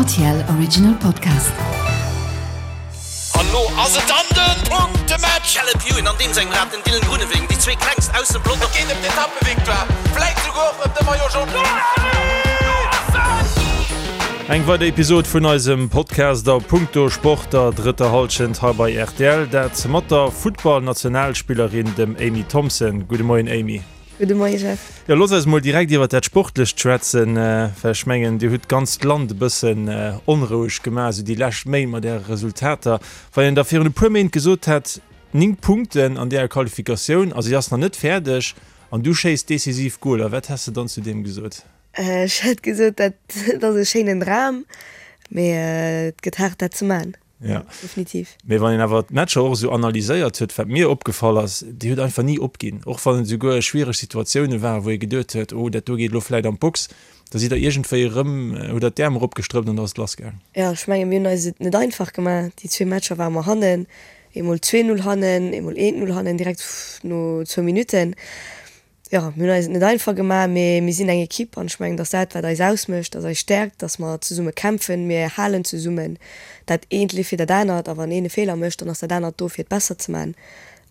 RTL Original Podcast. An lo ass et dann den Punktematch! Caleb Ewan an deem sengem Rad, den Dylan Groenewegen, déi zwee klengst aus dem Pelotong. Et geet ëm d'Etappevictoire, vläit souguer och ëm de Maillot Jaune. Eng weider Episod vun eisem Podcast a Punkto Sport der drëtter Hallschent hei bei rtl. Dat mat der Futtball-Nationalspillerin, dem Amy Thompson. Gudde Moien Amy. Gudde Moie Jeff. Jo, looss eis mol direkt iwwer dat Sportlecht schwätzen, well ech mengen, Dir hutt d'ganzt Land e bëssen onroueg gemaach esou déi lescht Méint mat Äre Resultater. Wann een da virun e puer Méint gesot hätt, 9 Punkten an deeër Qualifikatioun a si ass nach net fäerdeg an du schéiss decisiv Goler, wat häss de dann zu deem gesot? Ech hätt gesot, dat ass e schéinen Dram, mee et gëtt haart dat ze man. Ja. Definitiv. Mee wann een awer d'Matcher och esou analyséiert huet, wat mir opgefall ass, Dir hutt einfach ni opginn. Och wann et esouguer schwiereg Situatioune waren, wou ee geduet huet, oh dat do geet elo vläit an d'Box, da sidd der iergendwéi erëm, hutt der d'Äerm eropgestrëppt an da ass et lassgaang. Jo, ech menge mir hunn eis et net einfach gemaach. Déi zwee Matcher ware mer hannen, eemol 2, 0 hannen, eemol 1, 0 hannen, direkt no zwou Minutten. Jo, mir hunn eis et net einfach gemaach, mee mir sinn eng Ekipp an ech mengen, dass dat, wat eis ausmécht, dass eis Stäerkt, dass mer zesumme kämpfen, mir halen zesummen, dat eent leeft fir dat anert a wann een e Feeler mécht, dann ass dat anert do fir et besser ze man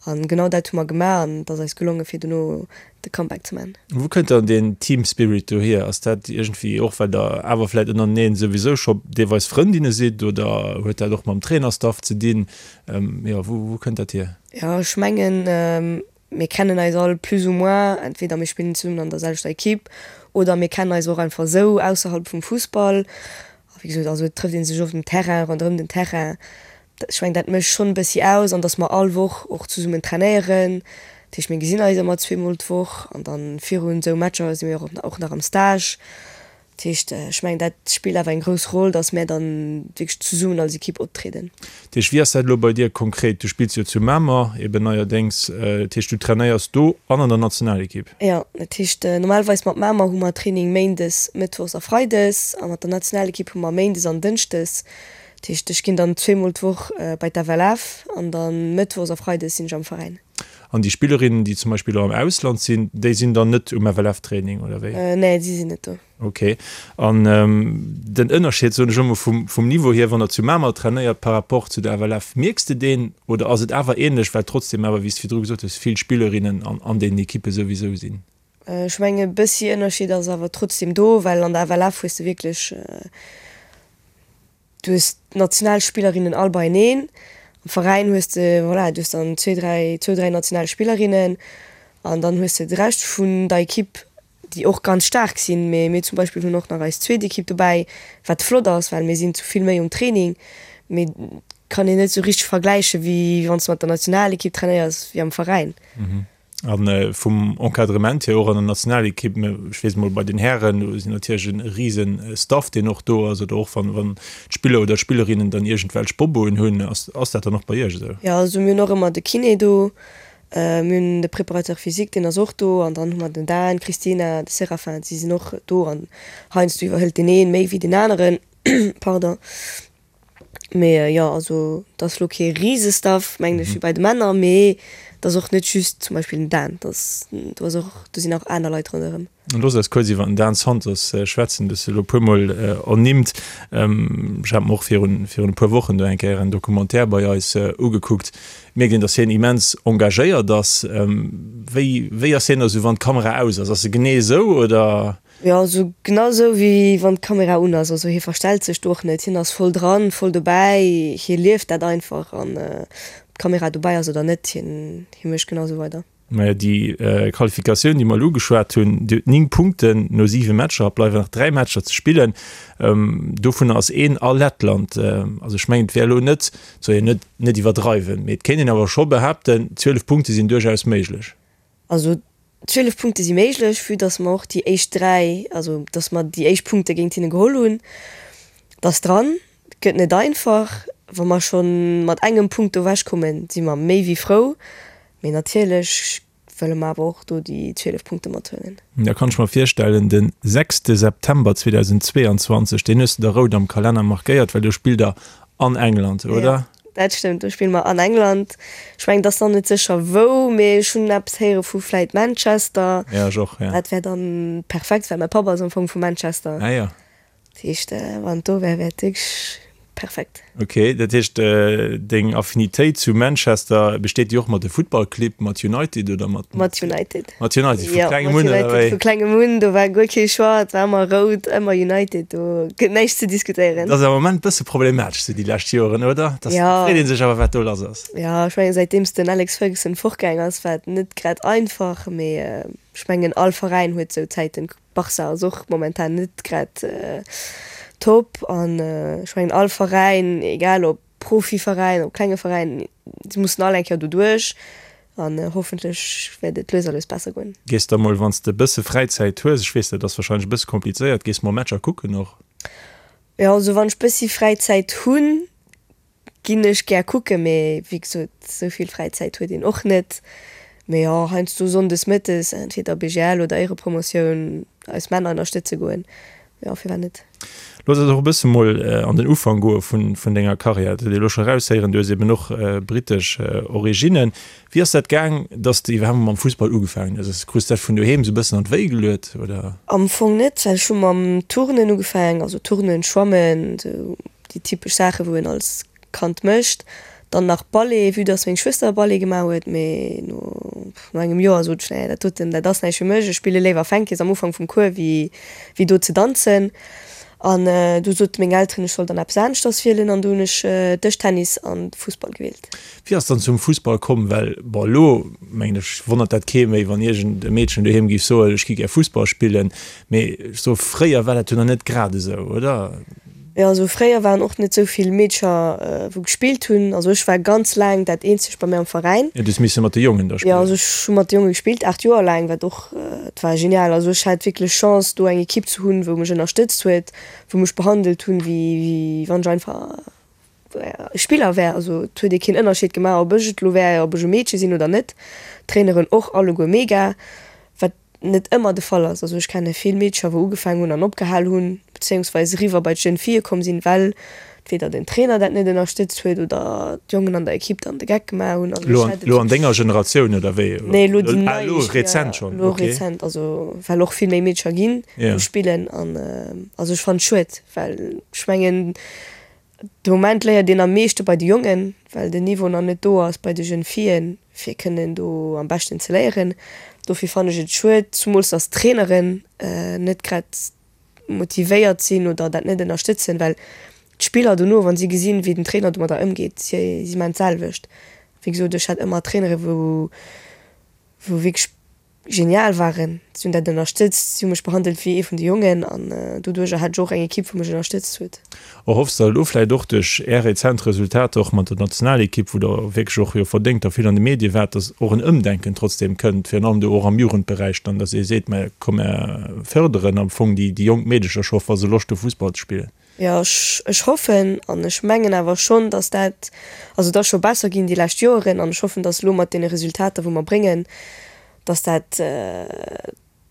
an genau dat hu mer gemaach an et ass eis gelonge fir dono de Comeback ze man. Wou kënnt dann deen Team Spirit do hier? Ass dat iergendwéi och well der awer vläit ënnereneen souwisou scho deelweis Frëndinne sidd oder huet dat och mam Trainerstaff ze dinn? Jo, wou wou kënnt dat hier? Jo, ech mengen Mir kennen eis all plus ou moins, entweder mir spillen zesummen an der selwechter Equipe oder mir kennen eis och einfach esou ausserhalb vum Fussball. A wéi gesot, also et trëfft ee sech oft um Terrain, ronderëm den Terrain. Ech mengen, dat mécht schonn e bëssi aus an datt mer all Woch och zesummen trainéieren. Dat heescht, mir gesinn eis ëmmer zweemol d'Woch an da virun esou Matcher si mir och nach am Stage. Dat heescht, ech mengen, dat spillt awer eng grouss Roll, datt mär dann wierklech zesummen als Ekipp optrieden. Dat heescht, wéi ass dat elo bei dir konkret? Du spills jo zu Mamer eben neierdéngs. Dat heescht, du trainéiers do an an der Nationalekipp? Jo, dat heescht, normalerweis mat Mamer hu mer Training méindes, mëttwochs a freides a mat der Nationalekipp hu mer méindes an dënschdes. Dat heescht, ech ginn dann zweemol d'Woch bei d'FLF an da mëttwochs a freides sinn ech am Veräin. An déi Spillerinnen, déi zum Beispill elo am Ausland sinn, déi sinn dann net um FLF-Training, oder wéi? Nee, si sinn net do. Ok. An den Ënnerscheed, soen ech elo mol, vum, vum Niveau hier, wann der zu Mamer trainéiert par rapport zu der FLF, mierks de deen oder ass et awer ähnlech, well trotzdem awer, wéi s de virdru gesot hues, vill Spillerinnen an, an deenen Ekippe souwisou sinn? Ech mengen, e bëssi Ënnerscheed ass awer trotzdem do, well an der FLF hues de wierklech, Du hues d'Nationalspillerinnen all beieneen. Am Veräin hues de, voilà, du hues dann zwee, dräi, zwou, dräi Nationalspillerinnen an dann hues de de Rescht vun der Ekipp, déi och ganz staark sinn. Mee mir zum Beispill hunn och nach eis zweet Ekipp dobäi, wat flott ass, well mir sinn zu vill méi um Training. Mee kann een net esou richteg vergläiche wéi wann s de mat der Nationalekipp trainéiers wéi am Veräin. A vum Encadrement hier och an der Nationalekipp, ech weess emol bei den Hären, do sinn natierlech e rise Staff, deen och do ass, oder och wann, wann d'Spiller oder d'Spillerinnen dann iergendwelch Boboen hunn, ass, ass dat dann och bei Iech esou? Jo, also mir hunn och ëmmer de Kiné do, mir hunn de Préparateur physique, deen ass och do, an dann hu mer den Dan, d'Christina, de Séraphin, si sinn och do an heiansdo iwwerhëlt deen ee méi wéi deen aneren, pardon. Mee jo, also et ass lo kee Risestaff, mengen ech, wéi bei de Männer, mee et ass och net just zum Beispill den Dan, et ass, do ass och, do sinn och aner Leit ronderëm. Looss eis kuerz iwwer den Dan Santos schwätzen, du hues e lo e puermol ernimmt. Ech hat mer och virun, virun e puer Wochen do eng Kéier en Documentaire bei eis ugekuckt. Mierkt een, datt hien immens engagéiert ass. Wéi, wéi ass hien da sou, wann d'Kamera aus ass? Ass e genee esou, oder? Jo, also genau esou wéi wann d'Kamera un ass. Also hie verstellt sech do och net, hien ass voll dran, voll dobäi, hie lieft dat einfach an ob d'Kamera dobäi ass oder net, hien hie mécht genau esou weider. Majo, déi Qualifikatioun, déi mer elo ugeschwat hunn, déi huet 9 Punkten no 7 Matcher, et bleiwen nach 3 Matcher ze spillen. Dovunner ass een a Lettland. Also ech mengen, et wär elo net, et soll een net net iwwerdreiwen, mee et kéint een awer scho behaapten, 12 Punkte sinn duerchaus méiglech. Also 12 Punkte si méiglech, vue dass mer och déi éischt 3, also dass mer déi éischt Punkte géint hinne geholl hunn. Et ass dran, et gëtt net einfach. Wa mer scho mat engem Punkt do ewechkommen, si mer méi wéi frou. Mee natierlech wëlle mer awer och do déi 12 Punkte mathuelen. Da kann ech mer virstellen, de sechste September 2022, deen hues de der rout am Kalenner markéiert, well do spillt der an England, oder? Jo, dat stëmmt, do spille mer an England. Ech mengen, et ass nach net sécher wou, mee ech hunn eppes héiere vu vläit Manchester. Ja, ech och, ja. Dat wär dann perfekt, well mäi Papp ass am Fong vu Manchester. Ah jo. Dat heescht, wann et do wär, wär et wierklech perfekt. Ok, dat heescht deng Affinitéit zu Manchester, besteet déi och mat de Futtballclibb, mat United oder mat? Mat United. Mat United, vu klengem un, oder wéi? Vu klengem un, do war guer kee Choix, et war ëmmer rout, ëmmer United, do gëtt näischt ze diskutéieren. Dat ass am Moment bësse problematesch sou déi lescht Joren, oder? Dat freet ee sech awer wat do lass ass. Jo, ech mengen säitdeems den Alex Ferguson fortgaang ass, war et net grad einfach, mee ech mengen all Veräin huet sou Zäiten. Barca ass och momentan net grad top an ech mengen all Veräin, egal ob Profiveräin, ob klenge Veräin, si mussen all eng Kéier doduerch an hoffentlech wäert et lues a lues besser goen. Gees da mol, wann s de e bësse Fräizäit hues, ech weess dat ass warscheinlech e bësse komplizéiert, gees mol Matcher kucken och? Jo, also wann ech bëssi Fräizäit hunn, Ginn ech gär kucken, mee wéi gesot, sou vill Fräizäit huet een och net. Mee jo, heiansdo sonndes mëttes entweder BGL oder Éirepromotioun eis Männer ënnerstëtze goen, jo firwat net. Looss eis och e bësse mol an den Ufank goe vun denger Karriär. Dat huet ee elo scho eraushéieren, du hues eben och brittesch Originnen. Wéi ass dat gaang, dass de iwwerhaapt mol mam Fussball ugefaangen hues? Krus dat vun doheem sou e bëssen an d'Wéi geluet, oder? Am Fong net, well ech hu mam Turnen ugefaangen, also Turnen, Schwammen, sou déi typesch Saachen, wou een als Kand mécht. Dann nach Ballet, vue dass meng Schwëster Ballet gemaach huet, mee no no engem Joer sot ech, nee, dat doten, dat ass näischt fir mech, ech spille léiwer Fänkes am Ufank vum Cours wéi wéi do ze danzen. An du sote meng Elteren, ech soll dann eppes aneschters wielen an du hunn ech Dëschtennis an Fussball gewielt. Wéi ass dann zum Fussball komm? Well bon, elo mengen ech wonnert dat kee méi, wann iergend e Meedchen doheem géif soen, ech gi gär Fussball spillen, mee ech soe fréier war dat jo nach net grad esou, oder? Jo, also fréier waren och net sou vill Meedcher wou gespillt hunn. Also ech war ganz laang dat eenzegt bei mir am Veräin. Jo, du hues misse mat de Jongen da spillen. Jo, also ech hu mat de Jonge gespillt, 8 Joer laang, wat och, et war genial. Also ech hat wierklech Chance do eng Ekipp ze hunn, wou mech ënnerstëtzt huet, wou mech behandelt hunn, wéi wann ech einfach e Spiller wär. Also et huet ee keen Ënnerscheed gemaach, ob ech et elo wär, ob ech e Meedche sinn oder net. D'Traineren och alleguer mega, wat net ëmmer de Fall ass. Also ech kenne vill Meedcher wou ugefaangen hunn an opgehal hunn, bezéiungsweis eriwwer bei d'Jeunes Filles komm sinn, well entweder den Trainer dat net ënnerstëtzt huet oder d'Jongen an der Ekipp dann de Geck gemaach hunn. Also ech hat et Elo an denger Generatioun oder wéi? Nee, elo déi nei. Ah, elo rezent schonn, Elo okay. rezent, also well och vill méi Meedcher ginn, wou spillen an also ech fannen et schued, well ech mengen De Moment léiert een am meeschte bei de Jongen, well den Niveau nach net do ass bei de Jeunes Fillen, fir kënnen do am beschten ze léieren. Dofir fannen ech et schued, zumools dass d'Traineren net grad motivéiert sinn oder dat net ënnerstëtzen, well d'Spiller dono, wa si gesinn, wéi den Trainer domadder ëmgeet, si si maachen d'selwecht. Wéi gesot, ech hat ëmmer Trainere wou wou wierklech genial waren. Si hunn dat ënnerstëtzt, si hu mech behandelt wéi ee vun de Jongen an doduercher hat ech och eng Ekipp, wou mech ënnerstëtzt huet. Erhoffs der elo vläit och duerch Är rezent Resultater och mat der Nationalekipp, wou Der wierklech och jo verdéngt a vill an de Medie waart, datt och en Ëmdenken trotzdeem kënnt, virun allem do och am Jugendberäich dann, datt ee seet, mä komm mär fërderen am Fong déi jonk Meedecher scho, wa se Loscht hu Fussball ze spillen? Jo, ech hoffen an ech mengen awer schonn, datt dat, also et ass scho besser ginn déi lescht Joeren an ech hoffen, datt elo mat deene Resultater wou mer bréngen, datt dat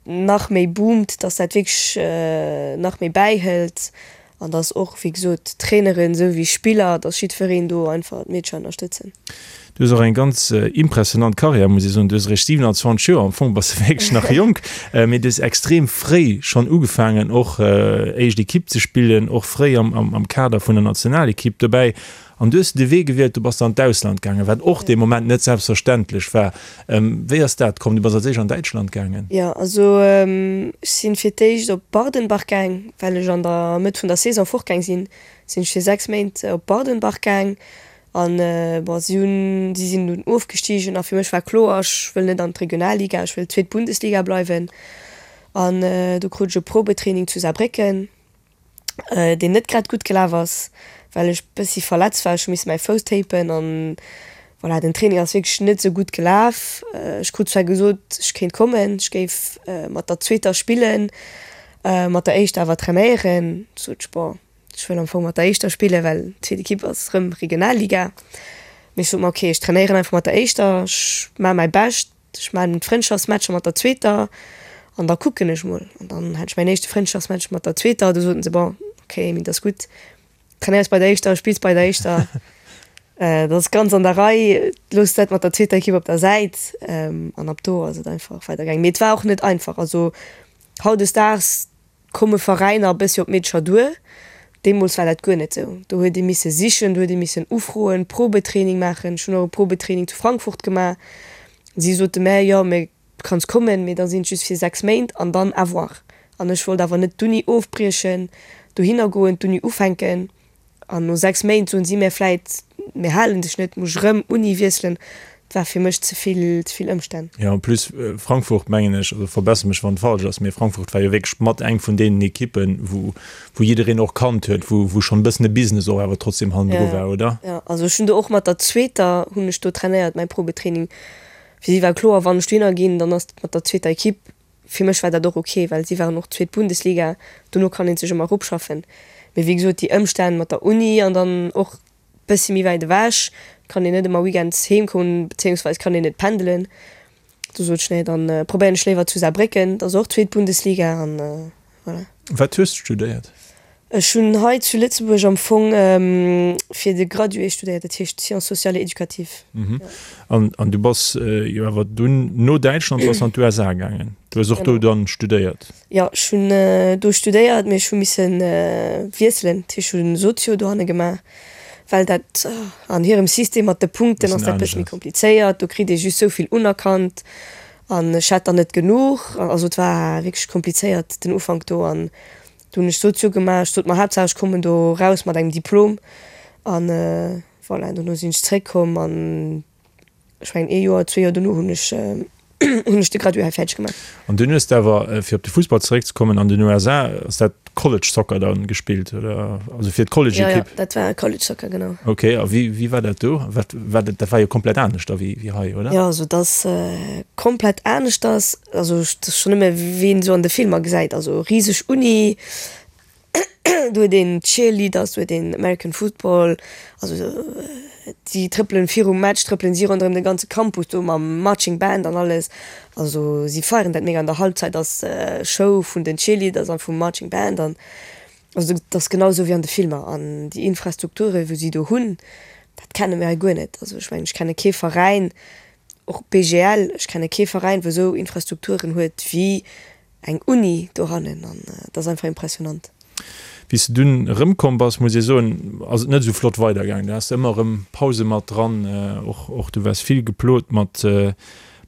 nach méi boomt, datt dat wierklech nach méi bäihëlt an datt och, wéi gesot, d'Traineren esou wéi Spiller, datt jiddwereen do einfach d'Meedcher ënnerstëtzen. Du hues och eng ganz impressionant Karriär, muss ech soen. Du hues eréischt 27 Joer, am Fong bass de wierklech nach jonk, mee du hues extrem fréi schonn ugefaangen och éischt Ekipp ze spillen, och fréi am Kader vun der Nationalekipp dobäi. An du hues de Wee gewielt, du bass dann an d'Ausland gaangen, wat och dee Moment net selbstverständlech war. Wéi ass dat komm? Du bass als éischt an Däitschland gaangen. Jo, also ech sinn fir d'éischt op Bardenbach gaang, well ech an der Mëtt vun der Saison fortgaang sinn, sinn ech fir 6 Méint op Bardenbach gaang An bon, si hunn, si sinn dunn ofgestigen a fir mech war kloer, ech wëll net an d'Regionalliga, ech wëll zweet Bundesliga bleiwen. An do krut ech e Probetraining zu Saarbrécken, deen net grad gutt gelaf ass, well ech bëssi verletzt war. Ech hu misse mäi Fouss tapen an voilà, den Training ass wierklech net esou gutt gelaf. Ech krut zwar gesot, ech kéint kommen, ech géif mat der zweeter spillen, mat der éischter awer trainéieren. Sot ech, bon, Ech wëll am Fong mat der éischter spillen, well d'zweet Ekipp ass rëm Regionalliga. Mee ech sot mer, ok, ech trainéieren einfach mat der éischter, ech maache mäi Bescht, ech maachen d'Frëndschaftsmatcher mat der zweeter an da kucken ech mol. An dann hat ech mäin éischte Frëndschaftsmatch mat der zweeter, du soten se, bon, ok Amy, dat ass gutt, trainéiers bei der éischter, spills bei der éischter, dat ass ganz an der Rei, looss dat mat der zweeter Ekipp op der Säit. An ab do ass et einfach weidergaangen. Mee et war och net einfach, also hautdesdaags. komme Veräiner e bëssi op d'Meedercher duer. Deemools war dat guer net esou. Do huet ee misse sichen, do huet ee missen ufroen, Probetraining maachen. Ech hunn och e Probetraining zu Frankfurt gemaach. Si sote mär, jo, mä du kanns kommen, mee da sinn et just fir 6 Méint an dann à voir. An ech wollt awer net d'Uni ofbriechen, dohinner goen, d'Uni ufänken an no 6 Méint soen si mär vläit, mir halen dech net, muss ech erëm Uni wiesselen. Et war fir mech ze vill, ze vill Ëmstänn. Jo, en plus Frankfurt, mengen ech, also verbesser mech wann et falsch ass, mee Frankfurt war jo wierklech mat eng vun deenen Ekippen, wou wou jiddereen och kannt huet, wou wou schonn e bëssen e Business och awer trotzdem hannendru war, oder? Jo, also ech hunn do och mat der zweeter hunn ech do trainéiert, mäi Probetraining. Fir si war kloer, wann ech dohinner ginn, dann ass et mat der zweeter Ekipp. Fir mech war dat och ok, well si waren och zweet Bundesliga, dono kann ee sech ëmmer eropschaffen. Mee wéi gesot, déi Ëmstänn mat der Uni an dann och bëssi méi wäit ewech, kann een net ëmmer weekends heem kommen, bezéiungsweis kann een net pendelen. Du sot ech, nee, dann probéieren ech léiwer zu Saarbrécken, dat ass och zweet Bundesliga an voilà. Wat hues de studéiert? Ech hunn hei zu Lëtzebuerg am Fong fir de Gradué studéiert, dat heescht Sciences sociales et éducatives. An, an du bass jo awer dunn no Däitschland bass an d'USA gaangen. Du hues och do dann studéiert? Jo, ech hunn do studéiert, mee ech hu misse wiesselen. Dat heescht, ech hunn Sozio dohanne gemaach, well dat an hirem System mat de Punkten ass dat e bësse méi komplizéiert. Do kritt ee just sou vill unerkannt an ech hat der net genuch. Also et war wierklech komplizéiert den Ufank do an Do hunn ech Sozio gemaach. Ech sot mer, Haaptsaach ech kommen do raus mat engem Diplom. An voilà, dono sinn ech zréckkomm an ech mengen ee Joer, zwee Joer dono hunn ech hunn ech de Gradué hei fäerdeg gemaach. An dunn hues de awer, fir op de Fussball zeréckzekommen, an den USA ass dat College Soccer dann gespillt, oder? Also fir d'College-Ekipp? Jo, jo, dat war College Soccer, genau. Ok, a wéi, wéi war dat do? Wat war dat, dat war jo komplett anescht da wéi, wéi hei, oder? Jo, also dat ass komplett aneschters. Also dat ass schonn nëmme wéi een esou an de Filmer gesäit, also riseg Uni, do huet een Cheerleaders, do huet een American Football, also déi trëppelen virum Match trëppelen si ronderëm de ganze Campus do mam Marching Band an alles, also si feieren dat mega. An der Halbzeit ass Show vun den Cheerleaders an vum Marching Band an also dat ass genau esou wéi an de Filmer. An déi Infrastrukture wou si do hunn, dat kenne mir hei guer net. Also ech mengen ech kenne kee Veräin, Och BGL, ech kenne kee Veräin, wou esou Infrastrukturen huet wéi eng Uni dohannen an dat ass einfach impressionant. Wéi s de dunn erëmkomm bass, muss ee soen, ass et net esou flott weidergaangen. Du has ëmmer erëm Pause mat dran, och och du waars vill geplot mat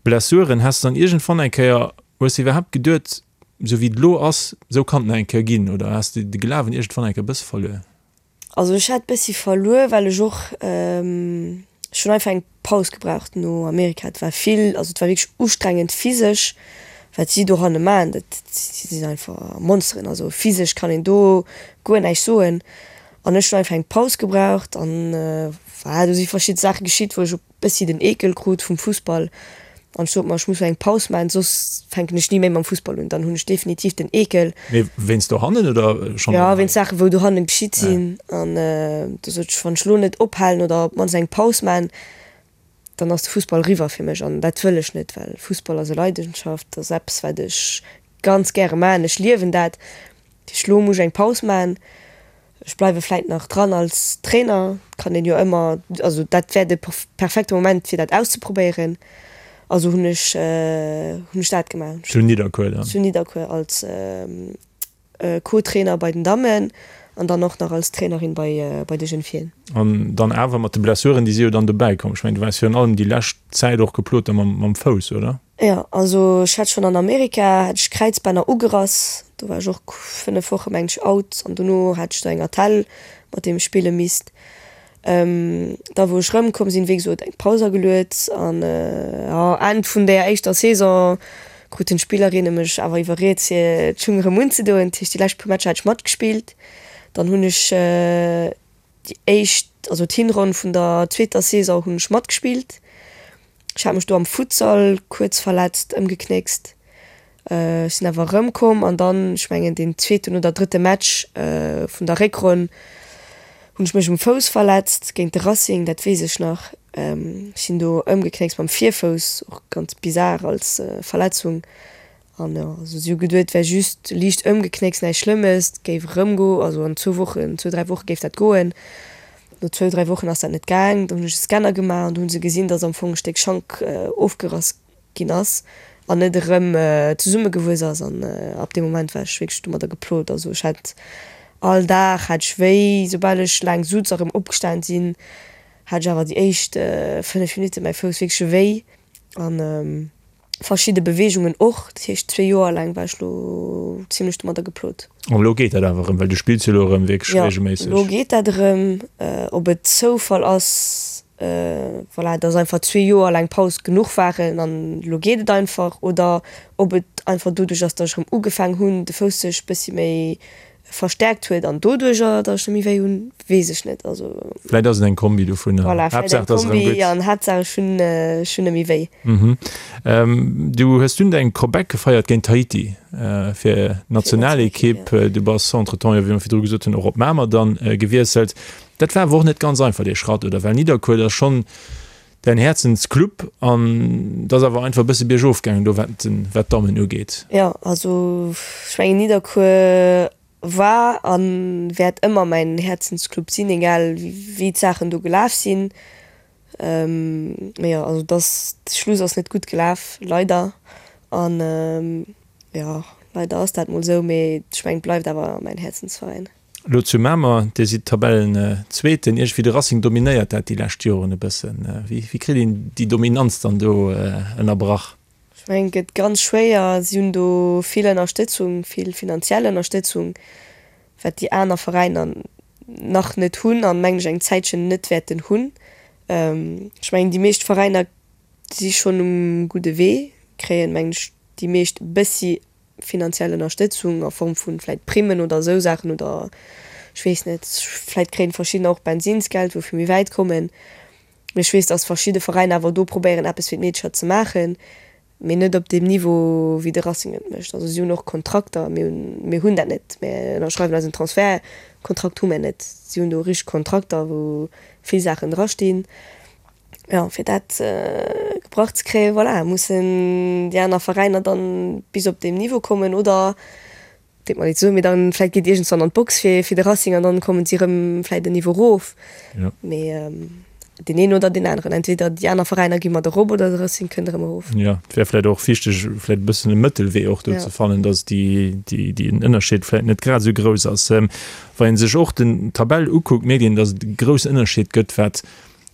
Blessuren. Has de dann iergendwann eng Kéier, hues de iwwerhaapt geduet, esou wéi et elo ass, esou kann et nach eng Kéier ginn oder has de de Glawen iergendwann eng Kéier e bësse verluer? Also ech hat bessi verluer well ech och, ech hunn einfach eng Paus gebraucht no Amerika. Et war vill, also et war wierklech ustrengend physesch wat si dohanne maachen, dat si sinn einfach Monsteren, also physesch kann een do guer näischt soen. An ech hunn einfach eng Paus gebraucht an voilà, do si verschidde Saache geschitt wou ech op bëssi den Eekel krut vum Fussball an ech sot mer, ech muss eng Paus maachen, soss fänken ech ni méi mam Fussball un, dann hunn ech definitiv den Eekel. Mee wéinst dohannen oder schonn Jo, wéinst Saachen, wou dohannen geschitt sinn. An du sot ech, wann ech elo net ophalen oder op d'mannst eng Paus maachen, dann ass de Fussball eriwwer fir mech an dat wëll ech net, well Fussball ass e Leidenschaft, dat ass eppes, wat ech ganz gäre maachen, ech liewen dat. Dat heescht, elo muss ech eng Paus maachen. Ech bleiwe vläit nach dran als Trainer, kann een jo ëmmer, also dat wär de perfekte Moment fir dat auszeprobéieren. Also hunn ech hunn ech dat gemaach. Zu Nidderkuer dann? Zu Nidderkuer als Co-Trainer bei den Dammen an dann och nach als Trainerin bei bei de Jeunes Filles. An dann awer mat de Blessuren, déi si jo dann dobäi komm. Ech mengen, du waars virun allem déi lescht Zäit och geplot da mam mam Fouss, oder? Jo, also ech hat schonn an Amerika hat ech Kräizbänner ugerass, do war ech och 5 Woche mengen ech out an dono hat ech do eng Attell mat deem ech spille misst. Da wou ech rëmkomm sinn, wéi gesot eng Paus ageluet an jo Enn vun där éischter Saison kruten d'Spillerinne mech awer iwwerriet fir d'Schung erëm unzedoen. Dat heescht déi lescht puer Matcher hat ech matgespillt. Dann hunn ech déi éischt, also d'Hinronn vun der zweeter Saison hunn ech matgespillt. Ech hat mech do am Futsal kuerz verletzt, ëmgeknéckst. Ech sinn awer erëmkomm an dann, ech mengen deen zweeten oder drëtte Match vun der Réckronn, hunn ech mech um Fouss verletzt géint de Racing, dat weess ech nach. Ech sinn do ëmgeknéckst mam Virfouss, och ganz bizar als Verletzung. An jo, also si hu geduet, et wär just liicht ëmgeknéckst, näischt Schlëmmes, et géif erëmgo, also an zwou Wochen, zwou, dräi Woche géif dat goen. No zwou, dräi Wochen ass dat net gaang. Dann hunn ech e Scanner gemaach an do hu se gesinn, datt am Fong e Stéck Schank ofgerass ginn ass. An net erëm zesummegewuess ass. An ab deem Moment war ech wierklech domadder geplot. Also ech hat all Dag hat ech wéi, soubal ech laang sutz a rëm opgestan sinn, hat ech awer déi éischt 5 Minutte mäi Fouss wierklech wéi. An verschidde Beweegungen och. Dat heescht zwee Joer laang war ech lo zimlech domadder geplot. An elo geet dat awer erëm, well du spills jo elo erëm wierklech reegelméisseg. Jo, elo geet dat erëm. Ob et Zoufall ass, voilà, dass einfach zwee Joer laang Paus genuch waren an elo geet et einfach, oder ob et einfach doduerch ass, dass ech erëm ugefaang hunn, de Fouss sech bëssi méi verstärkt huet an doduercher, dass ech net méi wéi hunn, weess ech net. Also. Vläit ass et eng Kombi dovunner. Voilà, vläit eng Kombi an Haaptsaach ech hunn, ech hunn net méi wéi. Du hues dunn däin Comeback gefeiert géint Tahiti fir d'Nationalekipp. Du bass entretemps jo, wéi mer virdru gesot hunn, och op Mamer dann gewiesselt. Dat war awer och net ganz einfach dee Schratt, oder? Well Nidderkuer, dat ass schonn däin Häerzensclub an et ass awer einfach e bësse biergof gaangen do wat wat d'Dammen ugeet. Jo, also ech mengen Nidderkuer war a wäert ëmmer mäin Häerzensclub sinn, egal wéi d'Saachen do gelaf sinn. Mee jo, also dass de Schluss ass net gutt gelaf, leider. An jo, leider ass dat mol esou, mee ech mengen et bleift awer mäin Häerzensveräin. Elo zu Mamer, Dir sidd Tabellenzweeten. Iergendwéi de Racing dominéiert dat déi lescht Joren e bëssen. Wéi kritt een déi Dominanz dann do ënnerbrach? Ech mengen, et gëtt ganz schwéier. Si hunn do vill Ënnerstëtzung, vill finanziell Ënnerstëtzung, wat déi aner Veräiner nach net hunn an, mengen ech, eng Zäitchen net wäerten hunn. Ech mengen, déi meescht Veräiner si schonn um gudde Wee, kréien, mengen ech, déi meescht e bëssi finanziell Ënnerstëtzung a Form vu vläit Primmen oder esou Saachen oder ech weess net, vläit kréien verschiddener och Bensinsgeld, wou fir méi wäit kommen. Mee ech weess, datt verschidde Veräiner awer do probéieren eppes fir d'Meedercher ze maachen, mee net op deem Niveau wéi de Racing et mécht. Also si hunn och Kontrakter, mir hunn, mir hunn dat net. Mir ënnerschreiwen eisen Transfertkontrakt hu mir net. Si hunn do richteg Kontrakter, wou vill Saachen drastinn. Jo, fir dat gebrach ze kréien, voilà, mussen déi aner Veräiner dann bis op deem Niveau kommen oder, deet mer leed ze soen, mee dann vläit geet iergendswann an d'Box fir fir de Racing an dann kommen si erëm vläit en Niveau erof. Jo. Mee deen een oder deen aneren, entweder déi aner Veräiner gi mat erop oder de Racing kënnt erëm erof. Jo, et wär vläit och wichteg, vläit e bëssen e Mëttelwee och do ze fannen, datt déi, déi, deen Ënnerscheed vläit net grad esou grouss ass. Wa ee sech och den d'Tabell ukuckt, mierkt een, datt et e groussen Ënnerscheed gëtt, wat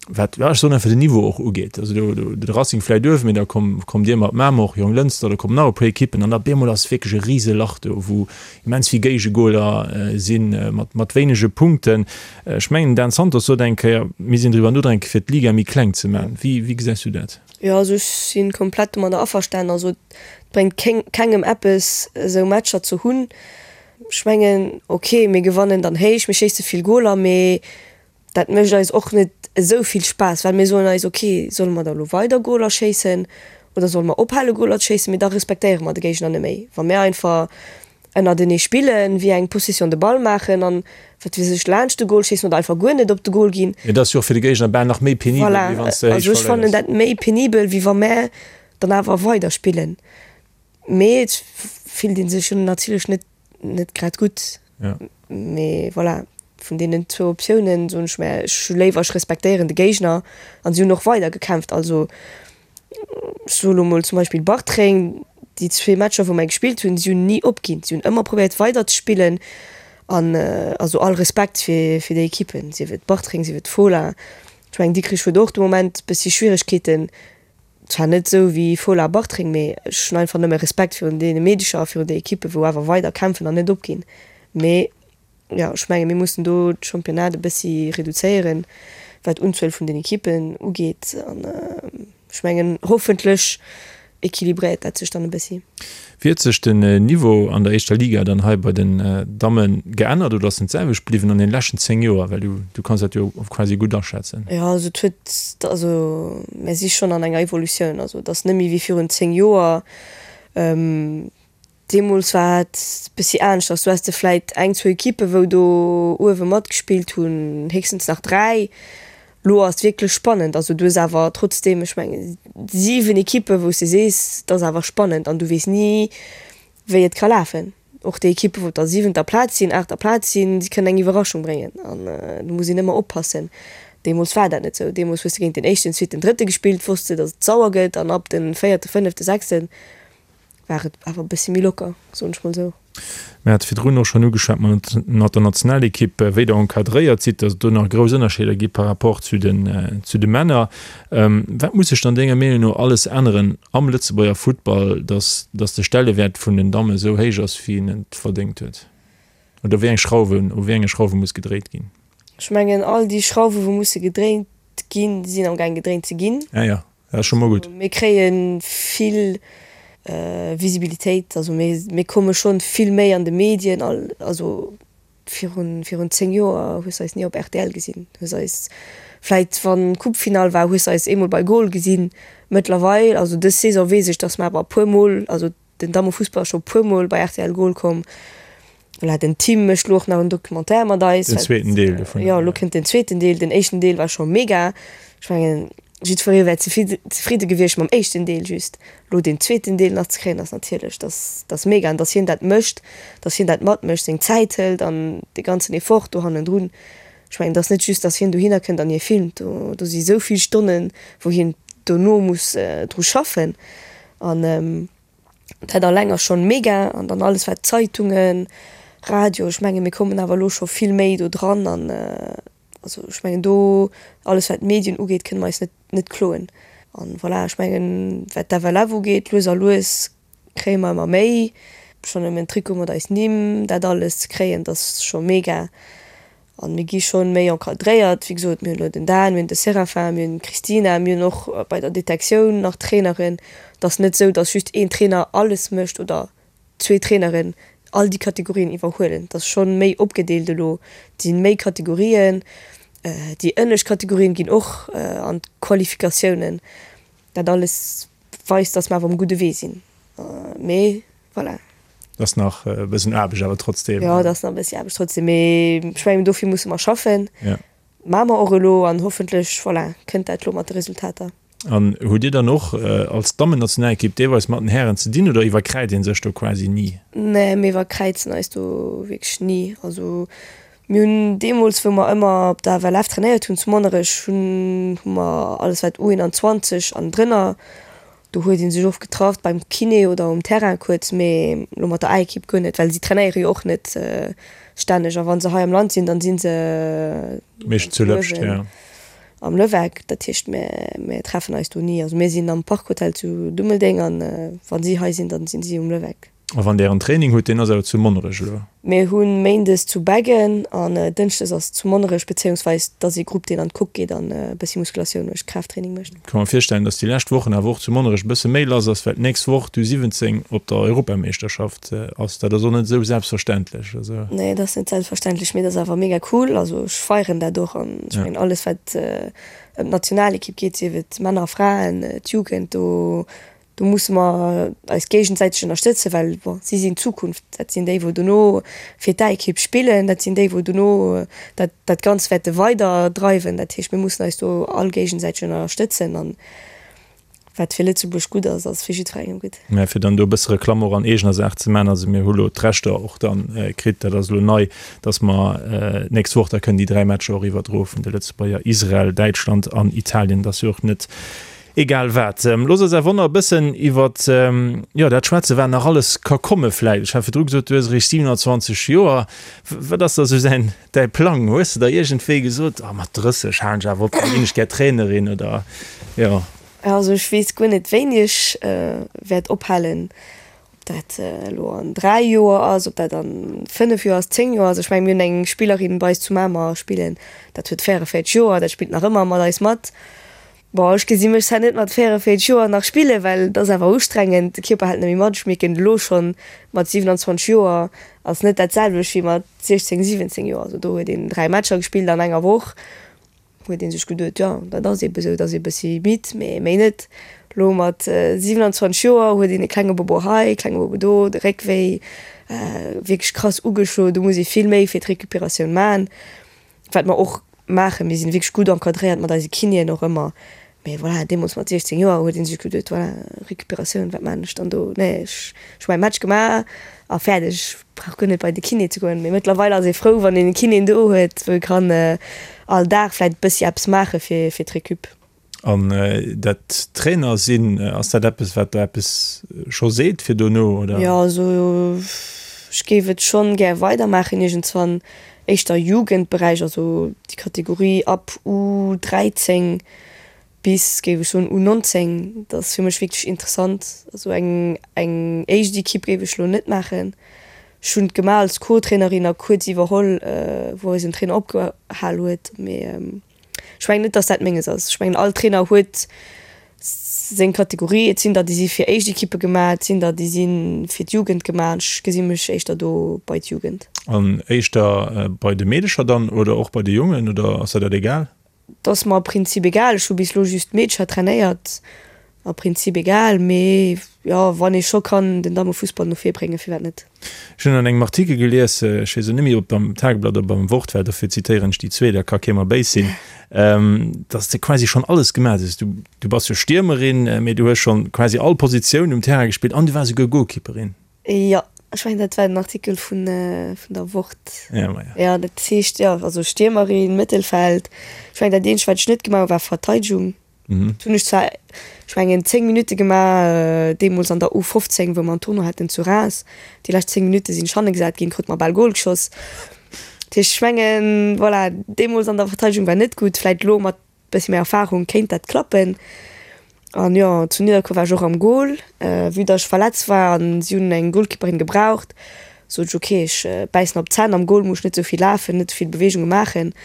wat, ja, ech soen einfach den Niveau och ugeet. Also do, do, de Racing vläit uewen, mee da komm, kommt Dir mat Mamer och, Jonglënster, do kommen nach e puer Ekippen an da bemol ass wierklech e rise Lach do, wou immens vill Géigegoler sinn, mat, mat wéinege Punkten. Ech mengen, den Dan Santos sot eng Kéier, mir sinn driwwer nodenken, fir d'Liga méi kleng ze maachen. Wéi, wéi gesäis du dat? Jo, also ech si komplett domadder averstanen. Also et bréngt kéng, kengem eppes, esou Matcher ze hunn. Ech mengen, ok, mir gewannen dann héich, mir schéisse vill Goler, mee Dat mécht eis och net esou vill Spaass, well mir soen eis, ok, solle mer da elo weider Goler schéissen oder solle mer ophale Goler ze schéissen, mee da respektéiere mer de Géigner net méi. Wa mir einfach ënnertenee spillen, wéi eng Possession de balle maachen an wat weess ech laanscht de Gol schéissen oder einfach guer net op de Gol ginn. Mee dat ass jo och fir de Géigner bal nach méi penibel, wéi wann s de héich verléiers. Voilà, also ech fannen dat méi penibel, wéi wa mär dann awer weider spillen. Mee et fillt ee sech jo natierlech net net grad gutt. Ja. Mee voilà, vun deenen zwou Optiounen soen ech mär, ech hu léiwer, ech respektéieren de Géigner an si hunn och weider gekämpft. Also ech soe lo mol zum Beispill Bartreng, déi zwee Matcher wou mär gespillt hunn, si hunn ni opginn, si hunn ëmmer probéiert weider ze spillen an also all Respekt fir fir déi Ekippen, sief et Bartreng, sief et Fola. Ech mengen Dikrich huet och de Moment bëssi Schwieregkeeten, Zwar net esou wéi Fola a Bartreng, mee ech hunn einfach nëmme Respekt virun deene Meedecher a virun de Ekippen, wou awer weider kämpfen an net opginn. Mee jo, ech menge mir mussen do d'Championnat e bëssi reduzéieren, wat d'Unzuel vun den Ekippen ugeet. An ech mengen, hoffentlech equilibréiert dat sech dann e bëssi. Wéi huet sech den Niveau an der éischter Liga dann hei bei den Damme geännert oder ass en d'selwecht bliwwen an den leschten 10 Joer? Well du du kanns dat jo quasi gutt aschätzen. Jo, also et huet, also mär si schonn an enger Evolutioun, also et ass net méi wéi virun 10 Joer. Deemools war et bëssi aneschters, do has de vläit eng, zwou Ekippe wou do uewe matgespillt hunn, héchstens nach 3. Lo ass et wierklech spannend. Also du hues awer trotzdeem, ech mengen 7 Ekippen, wou s de sees, et ass awer spannend an du weess ni, wéi et ka lafen. Och déi Ekippen, wou op der siwenter Plaz sinn, aachter Plaz sinn, si kënnen eng Iwwerraschung bréngen an do muss een ëmmer oppassen. Deemools war dat net esou. Deemools hues de géint den éischten, zweeten, drëtte gespillt, wosst de, datt et sauer gëtt an ab de véierte, fënnefte, sechsten. War et awer e bëssi méi locker, soen ech mol esou. Mir hate virdrun och schonn ugeschwat mat der Nationalekipp, wéi Der encadréiert sidd, datt et do nach grouss Ënnerscheeder gi par rapport zu den, zu de Männer. Wat muss sech dann denger Meenung no alles änneren am Lëtzebuerger Futtball, datt, datt de Stellewäert vun den Damme esou héich ass, wéi en et verdéngt huet? Oder wéi eng Schrauwen, u wéi enge Schrauwe muss gedréit ginn? Ech mengen, all déi Schrauwe wou musse gedréint ginn, sinn amgaang gedréint ze ginn. Ah jo. Dat ass scho mol gutt. Mir kréie vill Visibilitéit, also mir komme schonn vill méi an de Medien. Also virun 10 Joer hues de eis ni op rtl gesinn, hues eis vläit wann Coupe-Finall war, hues de eis eemol bei Goal gesinn. Mëttlerweil, also dës Saison weess ech, datt mer awer e puer mol, also Den Dammefussball ass scho puer mol bei rtl Goal komm. Voilà, den Tim mécht lo och nach en Documentaire mat eis. Den zweeten Deel dovun. Jo, lo kënnt den zweeten Deel. Den éischten Deel war scho mega. Ech mengen, jiddweree wär zefridde gewiescht mam éischten Deel just. Lo deen zweeten Deel nach ze kréien, ass natierlech, dat ass mega. An datt hien dat mécht, datt hien dat matmécht, seng Zäit hëlt an dee ganzen Effort do hannendrun. Ech mengen, et ass net just, datt hien dohinner kënnt an hie filmt. Do, do si sou vill Stonnen, wou hien dono muss dru schaffen. An dat alleng ass schonn mega. An dann alles wat Zeitungen, Radio, ech menge mir kommen awer elo scho vill méi do dran. An also ech mengen do alles wat d'Medien ugeet, kënne mer eis net net kloen. An voilà, ech mengen wat d'FLF ugeet, lues a lues kréie mer ëmmer méi. Schonn nëmmen Trikot mat eis Nimm, dat alles ze kréien, dat ass scho mega. An mir gi schonn méi encadréiert. Wéi gesot, mir hunn elo den Dan, mir hunn de Séraphin, mir hunn d'Christina, mir hunn och bei der Detektioun nach Traineren. Et ass net esou, datt just een Trainer alles mécht oder zwee Traineren all déi Kategorien iwwerhuelen. Et ass schonn méi opgedeelt elo. Et si méi Kategorien. Déi ënnescht Kategorien ginn och an d'Qualifikatiounen. Dat alles weist, datt mer awer um gudde Wee sinn. Mee voilà. Et ass nach e bëssen Aarbecht awer trotzdem. Jo, et ass nach e bëssi Aarbecht trotzdem, mee ech mengen, dofir musse mer schaffen. Ja. Maache mer och elo an hoffentlech, voilà, kënnt dat elo mat de Resultater. An hutt Dir dann och als Dammennationalekipp deelweis mat den Hären ze dinn oder iwwerkräizt ee sech do quasi ni? Nee, mir iwwerkräizen eis do wierklech ni. Also mir hunn deemools, wou mer ëmmer op der FLF trainéiert hunn zu Monnerech, hunn hu mer alles wat U21 an drënner Do huet een sech oft getraff beim Kiné oder um Terrain kuerz, mee lo mat der A-Ekipp guer net, well si trainéiere jo och net stänneg a wa se hei am Land sinn, dann si se Meeschtens zu Lëpscht, ja. Am Lëweck. Dat heescht mir mir treffen eis do ni. Also mir sinn am Parkhotel zu Dummeldeng an wa si hei sinn, dann sinn si um Lëweck. A wann der en Training hutt, deen ass awer zu Monnerech elo? Mir hu méindes zu Beggen an dënschdes ass zu Monnerech, bezéiungsweis et ass ee Grupp, deen an d'Coque geet an e bëssi Muskulatioun mécht, Kraafttraining mécht. Ka mer virstellen, dass déi lescht Wochen awer och zu Monnerech e bësse méi lass ass, well d'nächst Woch d'U17 op der Europameeschterschaft ass. Dat ass och net esou selbstverständlech. Also. Nee, dat ass net selbstverständlech, mee dat ass awer mega cool. Also ech feieren dat och an ech mengen alles wat ëm d'Nationalekipp geet, sief et Männer, Fraen, d'Jugend, do Do musse mer eis géigesäiteg ënnerstëtzen, well bon, si sinn d'Zukunft. Dat sinn déi, wou dono fir d'A-Ekipp spillen. Dat sinn déi, wou dono dat, dat Ganzt wäerte weiderdreiwen. Dat heescht, mir mussen eis do all géigesäiteg ënnerstëtzen. An wat fir Lëtzebuerg gutt ass, ass fir jiddwerengem gutt. Mä fir dann do e bësse Reklamm och an eegener Saach ze maachen, also mir hu lo d'Rechter och dann kritt, dat ass elo nei, dass mer d'nächst Woch da kënnen déi 3 Matcher och iwwerdroe vun de Lëtzebuerger, Israel, Däitschland an Italien. Dat ass jo och net Egal wat. Looss eis awer nach e bëssen iwwer, jo, dat schwätzen, wat nach alles ka komme vläicht. Ech hat virdru gesot, du hues eréischt 27 Joer. Wat ass da sou säin, däi Plang? Hues de da iergendwéi gesot, oh, mat 30 halen ech awer op, da ginn ech gär Trainerin oder, jo? Also ech weess guer net, wéini ech wäert ophalen. Ob dat elo an 3 Joer ass, ob dat an 5 Joer ass, 10 Joer ass. Ech mengen, mir hunn eng Spillerin bei eis zu Mamer spillen, dat huet 44 Joer, dat spillt nach ëmmer mat eis mat. Bon, ech gesi mech zwar net mat 44 Joer nach spillen, well et ass awer ustrengend, de Kierper hält net méi mat. Ech mierken et elo schonn, mat 27 Joer ass net dat selwecht wéi mat 16, 17 Joer. Also do huet een 3 Matcher gespillt an enger Woch, huet ee sech geduet, jo dat ass eebe sou, et ass ee bëssi midd, mee méi net. Elo mat 27 Joer huet een e klenge Bobo hei, e klenge Bobo do, de Réck wéi, wierklech krass ugeschloen, do muss ee vill méi fir d'Recuperatioun man. Wat mer och maachen, mir sinn wierklech gutt encadréiert mat eise Kinéen och ëmmer, mee voilà, deemools mat 16 Joer huet ee sech geduet, voilà, Recuperatioun, wat maachen ech dann do, nee, ech hu mäi Match gemaach a fäerdeg, ech brauch guer net bei de Kiné ze goen. Mee mëttlerweil ass ee frou, wann een e Kiné do huet, wou ee kann all Dag vläicht e bëssi eppes maache fir fir d'Recup. An dat Trainer sinn, ass dat eppes, wat der eppes scho seet fir dono, oder? Jo, also ech géif et schonn gär weidermaachen iergendswann, éischter Jugendberäich, also déi Kategorie ab U 13 bis, géif ech soen, U 19, dat ass fir mech wierklech interessant. Also eng eng éischt Equipe géif ech elo net maachen. Ech hunn et gemaach als Co-Trainerin a kuerz iwwerholl, wou eisen Trainer opgehal huet, mee. Ech mengen net, dass dat menges ass. Ech mengen, all Trainer huet seng Kategorie. Et sinn der, déi si fir éischt Ekippe gemaach, et sinn der, déi si fir d'Jugend gemaach. An ech gesi mech éischter do bei d'Jugend. An éischter bei de Meedecher dann oder och bei de Jongen oder ass der dat egal? Et ass mer am Prinzip egal. Ech hu bis elo just d'Meedecher trainéiert. Am Prinzip egal, mee jo, wann ee scho kann den Dammefussball no vir bréngen, firwat net? Ech hunn an engem Artikel gelies, ech weess elo net méi, ob et am Tageblatt oder beim Wort war, dofir zitéieren ech déi zwee, da ka kee mer béis sinn, datt s de quasi schonn alles gemaach hues. Du, du bass jo Stiermerin, mee du hues schonn quasi all Positioun um Terrain gespillt an du waars esouguer Goalkeeperin. Jo, ech mengen dat war den Artikel vun, vun der Wort. Ja, ma ja. Jo, dat heescht, jo, also Stiermerin, Mëttelfeld, ech mengen dat eenzegt wat ech net gemaach hu war Verteidegung. Dat hunn ech zwar, ech mengen 10 Minutte gemaach, deemools an der U15, wou mer en Tournoi haten zu Reims. Déi lescht 10 Minutte sinn ech hanne gesat ginn, krut mer bal Gol geschoss. Dat heescht, ech mengen, voilà, deemools an der Verteidegung war net gutt, vläit elo mat bëssi méi Erfarung kéint dat klappen. An jo, zu Nidderkuer war ech och am Gol. Vue datt ech verletzt war an si hunn eng Golkeeperin gebraucht, sot ech, ok, ech bäissen op d'Zänn, am Gol muss ech net esou vill lafen, net esou vill Beweegunge maachen.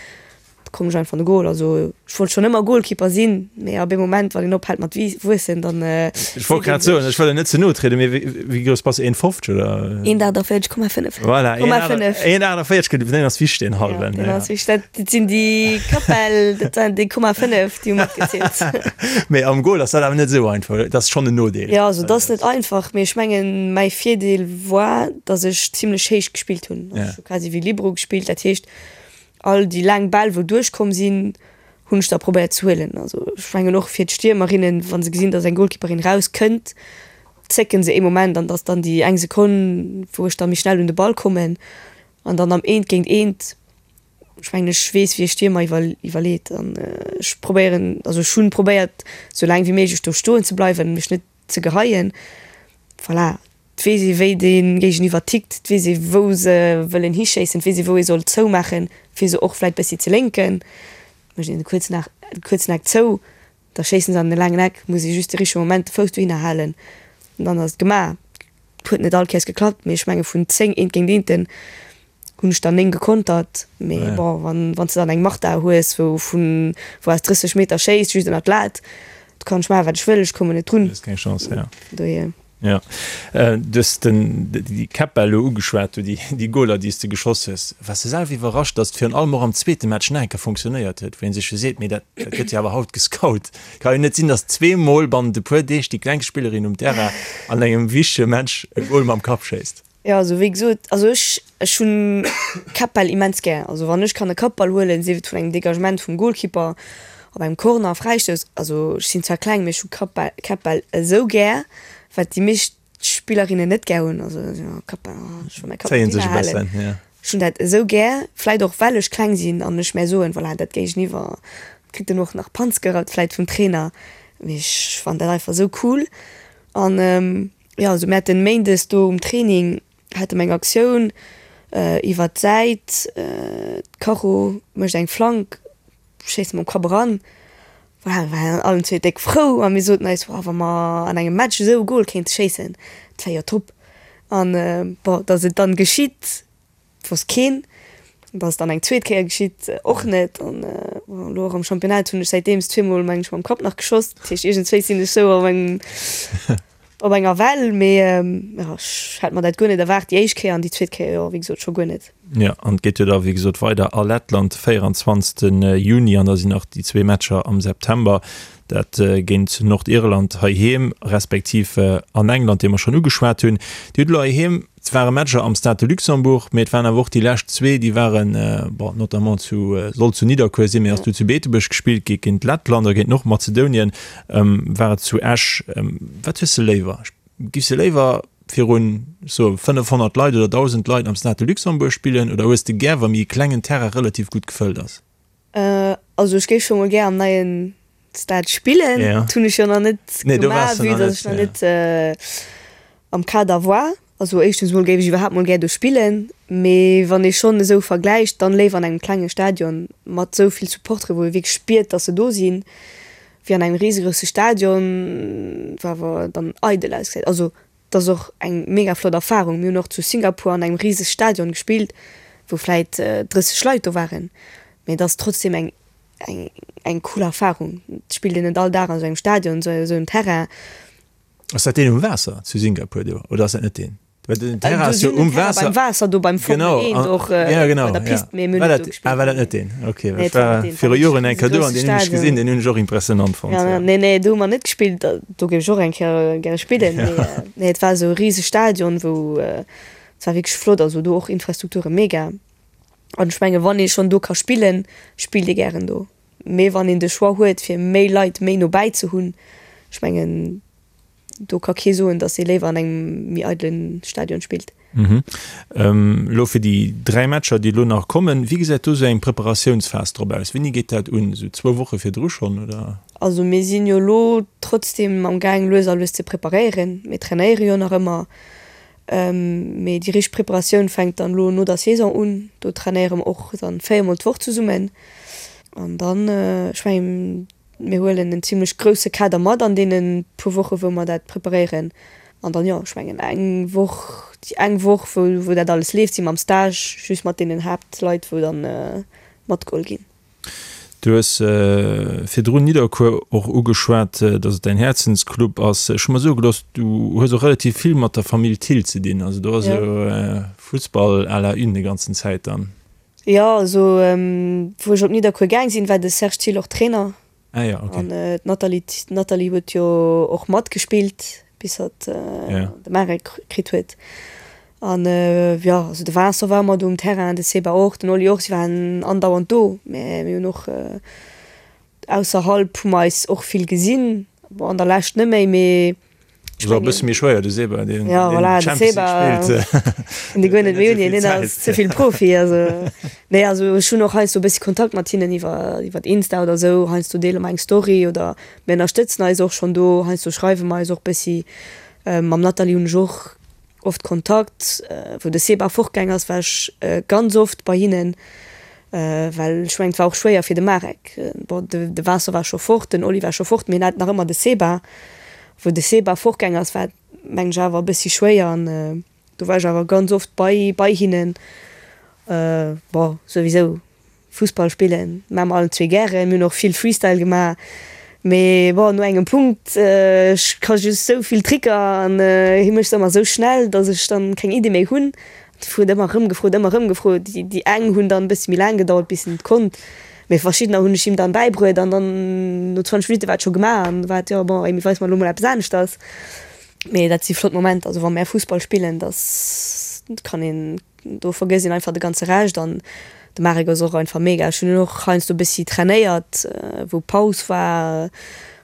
Da koum ech einfach an de Goal. Also ech wollt schonn ëmmer Goalkeeper sinn, mee ab ee Moment, wann een ophält mat wuessen, dann. Ech wollt grad soen, ech wëll der net ze no trieden, mee wéi grouss bass de? 1,50 oder? 1,48,5. Voilà, 1,48, deen ass wichteg, deen hallwen. Ja, deen ass wichteg. Dat sinn déi Kappel, dat waren déi Komma 5, déi hu matgezielt. Mee am Goal ass dat awer net esou einfach, dat ass schonn en Nodeel. Jo, also dat ass net einfach, mee ech mengen, mäi Virdeel war, datt ech zimlech héich gespillt hunn. Ech hu quasi wéi Libero gespillt, dat heescht, All déi laang Bäll wou duerchkomm sinn, hunn ech da probéiert ze huelen. Also ech mengen och fir d'Stiermerinnen, wa se gesinn, datt eng Goalkeeperin raus kënnt, zécken se ee Moment an datt dann déi eng Sekonn, wou ech da méi schnell un de Ball kommen an dann am Eent géint Eent, ech mengen ech weess wéi e Stiermer iwwer iwwerleet an ech probéieren, also ech hunn probéiert sou laang wéi méiglech do stoen ze bleiwen, mech net ze geheien. Voilà, Et weess ee wéi dee Géigeniwwer tickt, et weess ee wou se wëllen hischéissen, et weess ee wou ee soll zoumaachen, fir se och vläit bëssi ze lénken. Mécht een de kuerzen Eck, de kuerzen Eck zou, da schéissen se an de laangen Eck, muss ee just de richtege Moment de Fouss dohinner halen an dann ass et gemaach. Et huet net all Kéiers geklappt, mee ech menge vun 10 Eent géint Eenten hunn ech der 9 gekontert. Mee bon, wann wann s de dann eng Marta hues, wou vun wou aus 30 Meter schéisst, just ënnert d'Lat, do kann ech maachen wat ech wëll, ech kommen net drun. Hues keng Chance, ja. Dohier. Jo, du hues den, déi Käppbäll elo ugeschwat, do déi, déi Goler, déi s de geschoss hues. Waars de selwer iwwerrascht, datt et virun allem och am zweete Match nach eng Kéier funktionéiert huet, wou ee sech jo seet, mee dat, dat gëtt jo awer haut gescout. Ka jo net sinn, datt zweemol bannent e puer Deeg déi klengst Spillerin um Terrain an engem wichtege Match e Gol mam Kapp schéisst. Jo, also wéi gesot, also ech, ech hunn Kappbäll immens gär. Also wann ech kann e Kappball huelen, sief et vun engem Degagement vum Goalkeeper, op engem Corner, Fräistouss, also ech sinn zwar kleng, mee ech hu Kappbäll, Kappbäll esou gär, wat déi meescht Spillerinnen net gär hunn. Also jo, Kappbäll, oh, ech wëll mäi Kapp net hinnerhalen. Ech hunn dat esou gär, vläit och well ech kleng sinn an ech mär soen, voilà, dat Géigeniwwer kritt dann och nach Panz gerappt vläit vum Trainer, mee ech fannen dat einfach esou cool an. Jo, also mir haten méindes do um Training hate mer eng Aktioun iwwert d'Säit, d'Caro mécht eng Flank, schéisst mam Kapp eran. Voilà, mir waren allen zwee déck frou a mir soten eis, Wa mer an engem Match esou e Gol kéinte schéissen, dat wär jo top. An bon, datt et dann geschitt, Wosst keen. Dat ass dann eng zweet Kéier geschitt, och net. An elo och am Championnat hunn ech säitdeems zweemol, meng ech, mam Kapp nach geschoss. Dat heescht, iergendswéi sinn ech sou op engem, op enger Well. Mee jo, ech hat mer dat guer net erwaart déi éischt Kéier an déi zweet Kéier, jo, wéi gesot, scho guer net. Jo, an et geet jo da wéi gesot weider a Lettland, 24. Juni, an da sinn nach déi zwee Matcher am September, dat géint Nordirland heiheem, respektiv an England, déi mer schonn ugeschwat hunn. Dir hutt elo heiheem Et ware Matcher am Stade de Luxembourg, mee et waren awer och déi lescht zwee, déi waren, bon, notamment zu, sollt zu Nidderkuer sinn, mee ass du zu Beetebuerg gespillt gi géint Lettland a géint Nordmazedonien war et zu Esch. Wat hues de léiwer? Giffs de léiwer virun, ech soe 500 Leit oder 1.000 Leit am Stade de Luxembourg spillen oder hues de gär, wa méi e klengen Terrain relativ gutt gefëllt ass? Also ech géif scho mol gär am neien. Stade spillen. Dat hunn ech jo nach net gemaach, vue datt ech nach net am Kader war. Also éischtens mol géif ech iwwerhaapt mol gär do spillen, mee wann ee schonn esou vergläicht, dann léiwer an engem klenge Stadion mat esou vill Supportere wou ee wierklech spiert, datt se do sinn, wéi an engem risegrousse Stadion, wou awer dann eidel ausgesäit. Also et ass och eng mega flott Erfarung. Mir hunn och zu Singapur an engem riseg Stadion gespillt, wou vläit 30 Leit do waren, mee et ass trotzdem eng eng eng cool Erfarung. Et spillt een net all Dag an esou engem Stadion, esou engem Terrain. Ass dat deen um Waasser zu Singapur do oder ass dat net deen? Well den Terrain ass jo um Waasser. Beim Waasser do beim Formel 1 och ja, genau, bei der Pist, ja. Mee mir hunn net do gespillt. Ah, war dat net deen? Okay, well ech war viru Joren eng Kéier do an deen hunn ech gesinn, deen hunn ech och impressionant fonnt. Ja, nee, nee, do hu mer net gespillt. Do géif ech och eng Kéier gäre spillen. Mee nee, et war esou e riseg Stadion, wou et war wierklech flott, also do och Infrastrukture mega. An ech menge wann ee schonn do ka spillen, spillt ee gären do. Mee wann een de Choix huet, fir méi Leit méi no bäi ze hunn, ech mengen, do ka kee soen, datt ee léiwer an engem méi eidele Stadion spillt. Elo fir déi 3 Matcher, déi elo nach kommen, wéi gesäit do esou eng Preparatiounsphas drop aus? Wéini geet dat un? Esou zwou Woche virdru schonn, oder? Also mir sinn jo elo trotzdem am gaang lues a lues ze preparéieren. Mir trainéiere jo nach ëmmer. Mee déi richteg Preparatioun fänkt dann elo no der Saison un. Do trainéiere mer och dann 4 mol d'Woch zesummen. An dann, ech mengen, mir huelen en zimlech grousse Kader mat an deene puer Woche wou mer dat preparéieren. An dann, jo, ech mengen eng Woch, déi eng Woch wou wou dat alles leeft, si mer am Stage, just mat deenen Haaptleit wou dann matgeholl ginn. Du hues virdrun Nidderkuer och ugeschwat, datt et däin Häerzensclub ass. Ech hu mer soe gelooss, du hues och relativ vill mat der Famill Thill ze dinn. Also do ass jo Fussball à la une déi ganzen Zäit dann. Jo, also wou ech op Nidderkuer gaang sinn, war de Serge Thill och Trainer. Ah ja, okay. An d'Nathalie, d'Nathalie huet jo och matgespillt, bis hatt de Marek kritt huet. An jo, also de Vincent war ëmmer do um Terrain, de Seba och, den Oli och, si waren andauernd do. Mä mir hunn och ausserhalb hu mer eis och vill gesinn, bon an der Lescht net méi, mee Ass och e bësse méi schwéier, de Seba, deen ja, voilà, Champions League spillt. De guer net méi un, hien ass ze vill Profi. Also, nee, also ech hunn och heiansdo e bëssi Kontakt mat hinnen iwwer, iwwer Insta oder esou. Heiansdo deele mer eng Story oder mir ënnerstëtzen eis och schonn do. Heiansdo schreiwe mer eis och bëssi. Mam Nathalie hunn ech och oft Kontakt. Wou de Seba fortgaang ass, war ech ganz oft bei hinnen. Well ech mengen, et war och schwéier fir de Marek. Bon, de Vincent war scho fort, den Oli war scho fort, mee hien hat nach ëmmer de Seba. Wou de Seba fortgaang ass, war et, mengen ech, awer e bëssi schwéier an do war ech awer ganz oft bei bei hinnen. Bon, souwisou Fussball spillen maache mer allen zwee gären. Mir hunn och vill Freestyle gemaach. Mee bon, no engem Punkt, ech ka just sou vill Tricker an hie mécht se ëmmer sou schnell, datt ech dann keng Iddi méi hunn. Huet ëmmer erëm gefrot, ëmmer erëm gefrot. Déi eng hunn dann e bëssi méi laang gedauert, bis en et konnt, mee verschiddener hunn ech him dann bäibruet an dann no 20 Minutte war et scho gemaach an war et, jo bon, Amy, weis mer elo mol eppes aneschters. Mee dat si flott Momenter, also wa mär Fussball spillen, dass kann een, do vergësst een einfach de ganze Rescht an de Marek ass och einfach mega. Ech hunn en och heiansdo e bëssi trainéiert, wou Paus war,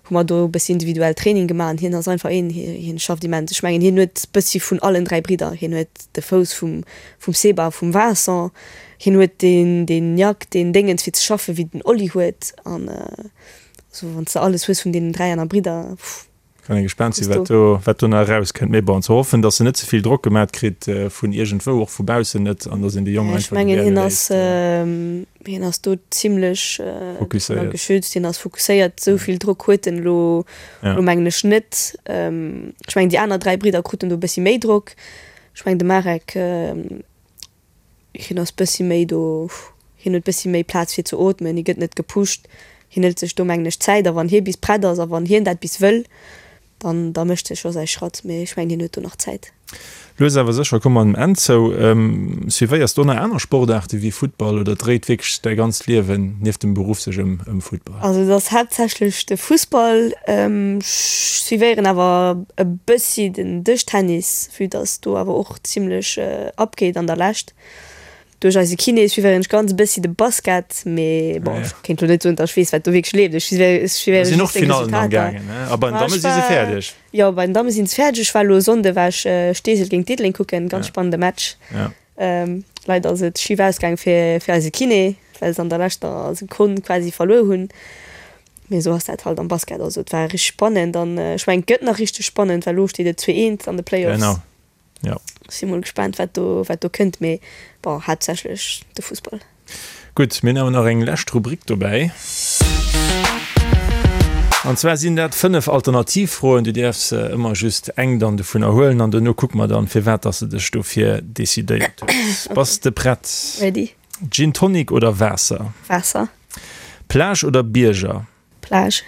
hu mer do e bëssi individuell Training gemaach an hien ass einfach een, hien schafft immens. Ech mengen hien huet bëssi vun allen 3 Bridder, hien huet de Fouss vum vum Seba a vum Vincent, hien huet deen deen Nhack, deen Déngens fir ze schaffen, wéi den Oli huet an also wann s de alles hues vun deenen 3 aner Bridder, pff. Kann ee gespaant sinn, wat do, wat do nach erauskënnt. Mee bon, ze hoffen, datt en net ze vill Drock gemat kritt vun iergendwou, och vu baussen net, an datt een de Jong einfach gewäre léisst. Ech mengen, hien ass, hien ass do zimlech fokusséiert, geschützt, hien ass fokusséiert. Esou vill Drock huet en elo, elo mengen ech net. Ech mengen, déi aner 3 Bridder kruten do e bëssi méi Drock. Ech mengen, de Marek, Hien ass bëssi méi do, hien huet bëssi méi Plaz fir ze ootmen, hie gëtt net gepusht, hien hëlt sech do mengen ech Zäit a wann hie bis prett ass a wann hien dat bis wëll, dann da mécht hie scho säi Schratt, mee ech mengen hien huet do nach Zäit. Lues awer sécher komme mer dem Enn zou. Suivéiers de och nach aner Sportaarte wéi Futtball oder dréit wierklech däi ganzt Liewen nieft dem Beruff sech ëm Futtball? Also et ass haaptsächlech de Fussball. Ech suivéieren awer e bëssi den Dëschtennis, vue dass do awer och zimlech abgeet an der Lescht. Duerch eise Kiné suivéieren ech ganz e bëssi de Basket, mee bon, ech kéint lo net soen, datt ech weess, wat do wierklech leeft. Ech suivéiere just seng Resultater. A bei den Damme si se fäerdeg. Jo, bei den Damme si se fäerdeg. Ech war elo e Sonnde war ech Steesel géint Diddeleng kucken, ganz spannende Match. Leider ass et schif ausgaang fir fir eise Kiné, well se an der leschter Sekonn quasi verluer hunn. Mee esou ass dat halt am Basket. Also et war richteg spannend an ech mengen et gëtt nach richteg spannend, well elo steet et 2, 1 an de Playoffs. Genau, jo. Si mol gespaant wat do wat do kënnt, mee bon haaptsächlech de Fussball. Gutt, mir hunn awer nach eng lescht Rubrik dobäi. An zwar sinn dat 5 Alternativfroen. Du däerfs ëmmer just eng dann dovunner huelen an dono kucke mer dann, firwat dass de dech dofir decidéiert hues. Bass de prett? Ready. Gin Tonic oder Waasser? Waasser. Plage oder Bierger? Plage.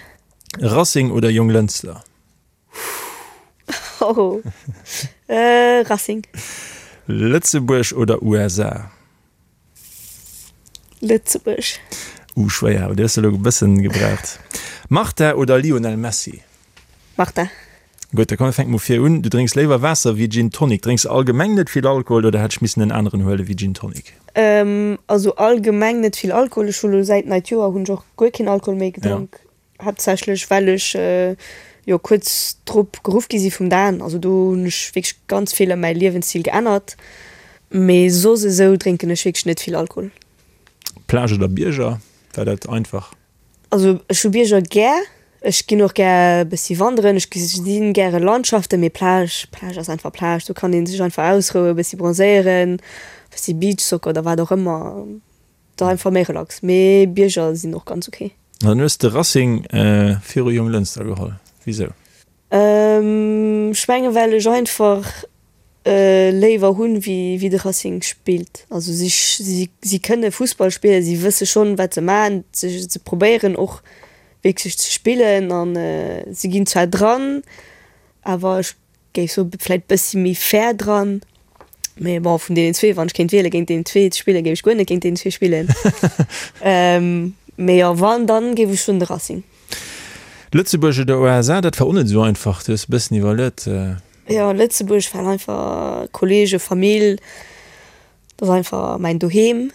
Racing oder Jonglënster? Oh, Racing. Lëtzebuerg oder USA? Lëtzebuerg. Uh, schwéier, awer déi hues de elo e bëssen gebraucht. Marta oder Lionel Messi? Marta. Gutt, da komm mir fänke mol vir un. Du drénks léiwer Waasser wéi Gin Tonic. Drénks de allgemeng net vill Alkohol oder hätt ech missen en aneren huele wéi Gin Tonic? Also allgemeng net vill Alkohol. Ech hu lo säit neit Joer hunn ech och guer keen Alkohol méi gedronk. Haaptsächlech well ech jo kuerz drop geruff gi si vum Dan. Also do hunn ech wierklech ganz vill ëm mäi Liewensstil geännert. Mee soss esou drénken ech wierklech net vill Alkohol. Plage oder Bierger? War dat einfach? Also ech hu Bierger gär, ech ginn och gär e bëssi wanderen, ech gesinn gäre Landschaften, mee Plage, Plage ass einfach Plage, do kann ee sech einfach ausrouen, e bëssi bronzéieren, e bëssi Beachsoccer oder wat och ëmmer, et ass einfach méi relax. Mee Bierger sinn och ganz ok. An dann hues de Racing viru Jonglënster geholl, wisou? Ech menge well ech einfach léiwer hunn wéi de Racing spillt. Also si si kënne Fussball spillen, si wësse schonn wat se maachen, se probéieren och wierklech ze spillen an si ginn zwar dran, awer ech géif soe vläit bëssi méi fair dran. Mee bon vun deenen zwee, wann ech kéint wiele géint deenen zwee ze spillen, géif ech guer net géint deenen zwee spillen. Mee jo wann dann géif ech soen de Racing. Lëtzebuerg oder USA, dat war och net esou einfach, du hues e bëssen iwwerluet. Jo, Lëtzebuerg well einfach Kollege, Famill, dat ass einfach mäin Doheem.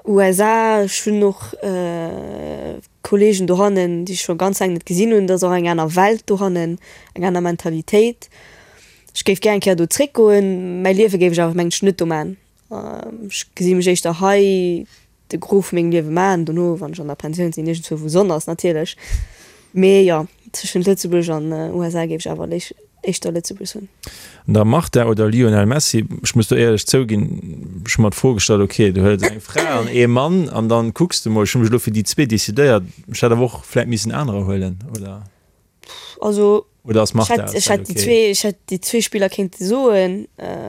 USA, ech hunn och Kollegen dohannen, déi ech scho ganz laang net gesinn hunn, dat ass och eng aner Welt dohannen, eng aner Mentalitéit. Ech géif gär eng Kéier do zréckgoen, mäi Liewe géif ech awer mengen ech net do man. Ech gesi mech éischter hei de Gros vu mengem Liewe maachen, dono wann ech an der Pensioun sinn, iergendzwou wou Sonn ass natierlech. Mee jo, tëschent Lëtzebuerg an USA géif ech awer éischter Lëtzebuerg soen. An da Marta oder Lionel Messi, ech muss do éierlech zouginn, ech hu mer d'Fro gestallt, ok du huels eng Fra an ee Mann an dann kucks de mol, ech hu mech elo fir déi zwee decidéiert, ech hätt awer och vläit missen anerer huelen, oder? Also Oder ass ech Marta hätt, ech hätt déi zwee, ech hätt déi zwee Spiller kéinte soen,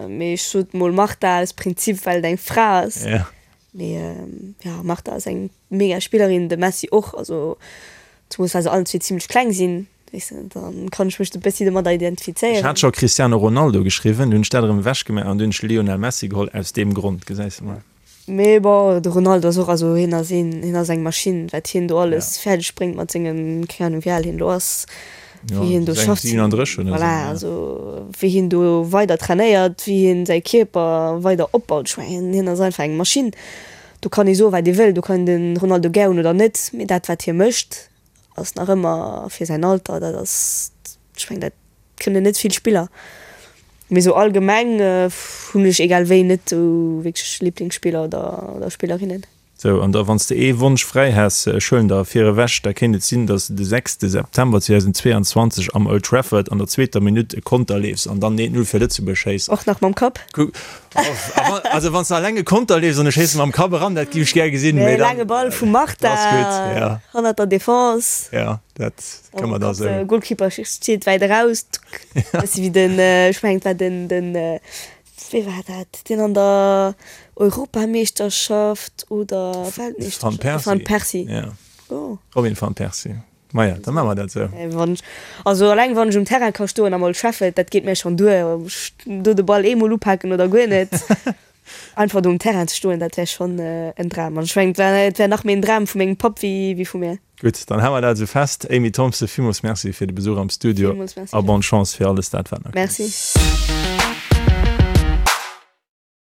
mee ech sot mol Marta aus Prinzip, well et eng Fra ass. Ja. Mee ja, Marta ass eng mega Spillerin, de Messi och, also zumools well se allen zwee zimlech kleng sinn, weess de, dann kann ech mech e bëssi domadder Ech identifizéieren. hat scho Cristiano Ronaldo geschriwwen, dunn hunn ech dat erëm ewechgemaach an dunn hunn ech Lionel Messi geholl, aus deem Grond, gesäis de mol. Mee bon, de Ronaldo ass och, also hien ass een, hien ass eng Maschinn, wat hien do alles fäerdeg bréngt mat sengem, keng Ahnung wéi al hien elo ass, wéi hien do schafft, voilà, also wéi hien do weider trainéiert, wéi hien säi Kierper weider opbaut, ech mengen hien ass einfach eng Maschinn. Do kann ee soen wat ee wëll, do kann een de Ronaldo gär hunn oder net, mee dat wat hie mécht ass nach ëmmer fir säin Alter, dat ass, ech mengen dat Kënnen net vill Spiller, mee sou allgemeng hunn ech egal wéi net sou wierklech Liblingsspiller oder Spillerinnen. Sou, an da wann s de ee Wonsch fräi häss, ech huelen der vir ewech, da kéint et sinn, dass de de sechste September 2022 am Old Trafford an der zweeter Minutt e Konter leefs an dann 1, 0 fir Lëtzebuerg schéiss. Och nach mam Kapp? Also wann s de alleng e Konter leefs an ech schéisse mam Kapp eran, dat géif ech gär gesinn, mee dann. Laange Ball vum Marta hannert der Defense. Ja, dat. Kann man da sou. De Goalkeeper steet wäit eraus, bëssi wéi den, ech mengen et war den, den, wee war dat, deen an der Europameeschterschaft oder Weltmeeschterschaft, de Van Persie, ja, Robin van Persie, maja, da maache mer dat sou. Wann ech, also eleng wann ech um Terrain ka stoen am Old Trafford, dat geet mir schonn duer, ob ech do de Ball eemol upaken oder guer net, einfach do um Terrain ze stoen, dat wär schonn en Dram. An ech mengen et wär nach méi en Dram vu mengem Papp wéi vu mir. Gutt, dann hu mer dat esou fest. Amy Thompson, villmools Merci fir de Besuch am Studio Villmools Merci. a bonne Chance fir alles dat, wat nach kënnt. Merci.